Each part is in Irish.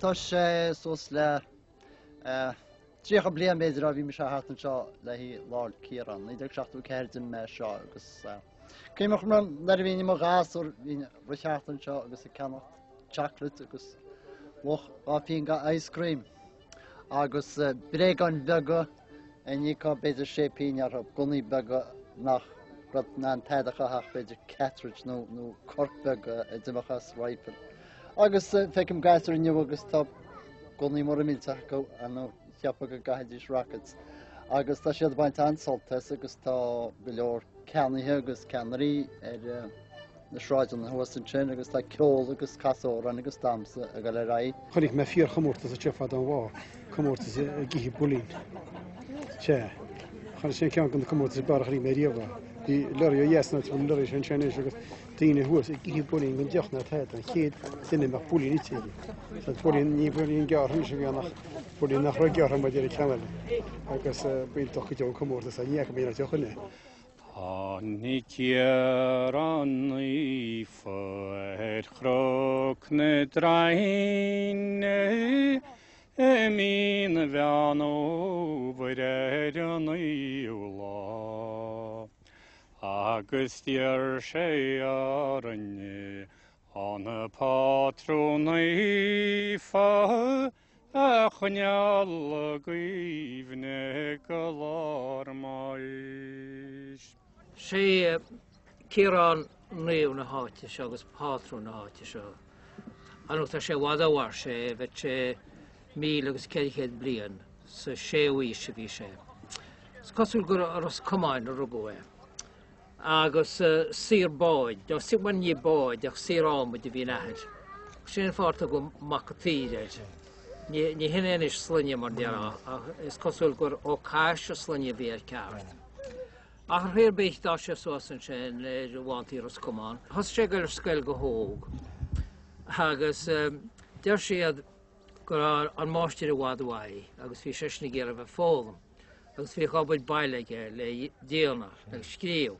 tá sé suas le 30 bliain b'fhéidir ó bhí mise thart anseo le haghaidh Lá 'le Ciaráin, 1974 d'imigh mé as seo agus cuimhním nuair a bhínn i mo ghasúr bhínn ag rith thart anseo agus ag ceannacht chocolate agus luach 2 phingin de ice cream agus bréagáin bheaga a n-íocfá b'fhéidir sé pingin orthu, gunnaí beaga nach raibh in ann tada a chaitheamh ach b'fhéidir cartridge nó nó corc beag a d'imeodh as rifle. Agus feicim gasúir inniu agus tá gunnaí móra millteacha acu nó cheapfá go gcaithfidís rockets. Agus tá siad ag baint an-sult as agus tá go leor ceannaithe agus ceannairí ar na sráideanna thuas ansin agus tá ceol agus casadh amhrán agus damhsa ag dul ar aghaidh. Chonaic mé fíorchomórtas anseo fadó an lá, comórtas ag ithe builín. Sea, chonaic sin ceann de na comórtais is fearr a chonaic mé riamh é. Bhí lorry ó dheas, nó tá an lorry sin ansin anois agus daoine thuas ag ithe builín gan deoch ná tada, an chéad duine a mbeadh builín ite aige. Sea, builín, ní builín gearrtha anois a bhí ann ach builín nach raibh gearrtha mar a deir an ceann eile. Agus b'iontach go deo an comórtas é, ní fhaca mé aon deoch in é. Tháinig Ciarán Naofa ar Chnoc na Draoinne i mí an Mheán Fhómhair ar an naoú lá agus d'iarr sé orainn an Pátrún Naofa a choinneáil i gcuimhne go lá ár mbáis. Sé Ciarán naomh na háite seo agus pátrún na háite seo. Ar ndóigh tá sé i bhfad ó mhair sé, bheadh sé 1400 bliain, sa séú aois a bhí sé. Is cosúil gur i Ros Comáin a rugadh é. Agus saor báid, nó bhuel ní báid ach saor adhmaid a bhí ina athair. Sin an fáth ar tugadh Mac an tSaoir air. Ní hin é anois sloinne mar déarfá, ach is cosúil gur Ó Cais an sloinne a bhí air ceart. Ach ar chaoi ar bith d'fhás sé suas ansin ar bhántaí Ros Comáin. Thosaigh sé ag dul ar scoil go hóg agus deir siad go raibh an máistir i bhfad uaidh agus bhí seisean ag iarraidh a bheith ag foghlaim. agus bhíodh obair baile aige le déanamh agus scríobh.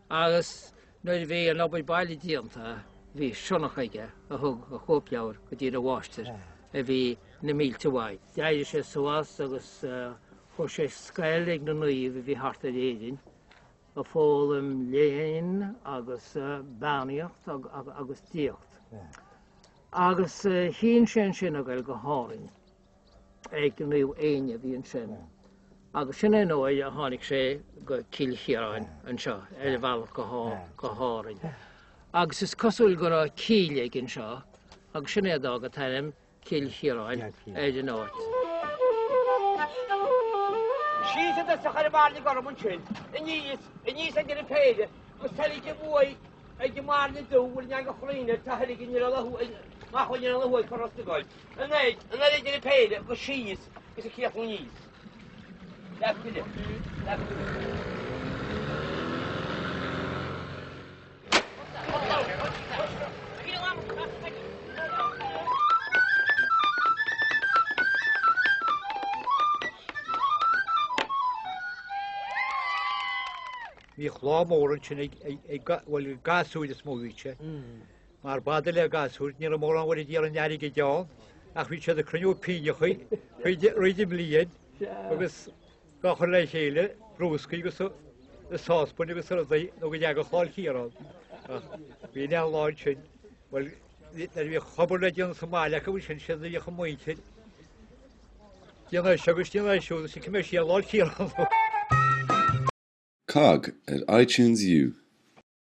Agus nuair a bhí an obair baile déanta bhí sionnach aige a thug a chóipleabhar go dtí a mháistir a bhí na mílte uaidh. D'éirigh sé suas agus chuaigh sé scoil ag na naoimh a bhí thart ar Éirinn ag foghlaim léinn agus beannaíocht agus diagacht. Agus chinn sé ansin a ghoil go hÁrainn. ag Naomh Éinne a bhí ansin. Agus sin é an uair a tháinig sé go Cill Chiaráin anseo ar a bhealach go hÁrainn. Agus is cosúil go raibh cill aige anseo agus sin é a d'fhág an t-ainm Cill Chiaráin ar an áit. Síos i dtosach ar an mbairne gorm ansin, aníos, aníos ag an péire, agus teilg a bhuaidh ag an mbairne dubh, bhfuil an eangach chruinn air, tá thuiligh in ar a mach in ar a thuaidh cur os na gcoil. Anoir, anoir idir an péire agus síos agus ag críochnú aníos. Leath tuile, leath tuile. Bhíodh lá mór ansin ag, ag, bhuel, gasúir is mó a bhí sé. Mar b'fhada le gasúir, ní raibh mórán uair a d'iarraidh an airgid ann, ach bhí siad ag cruinniú pínneachaí fríd an mbliain agus dá chur le chéile, brúscaí agus i sáspain agus rudaí nó go dteagadh Lá 'le Ciarán. Ach bhí an lá ansin, bhuel, nuair a bhíodh obair le déanamh sa mbaile acu ansin, siad a bhíodh an mhuintir, déanamh é seo agus déanamh é siúd, agus cimé siar Lá 'le Ciarán. Cogg ar iTunes U.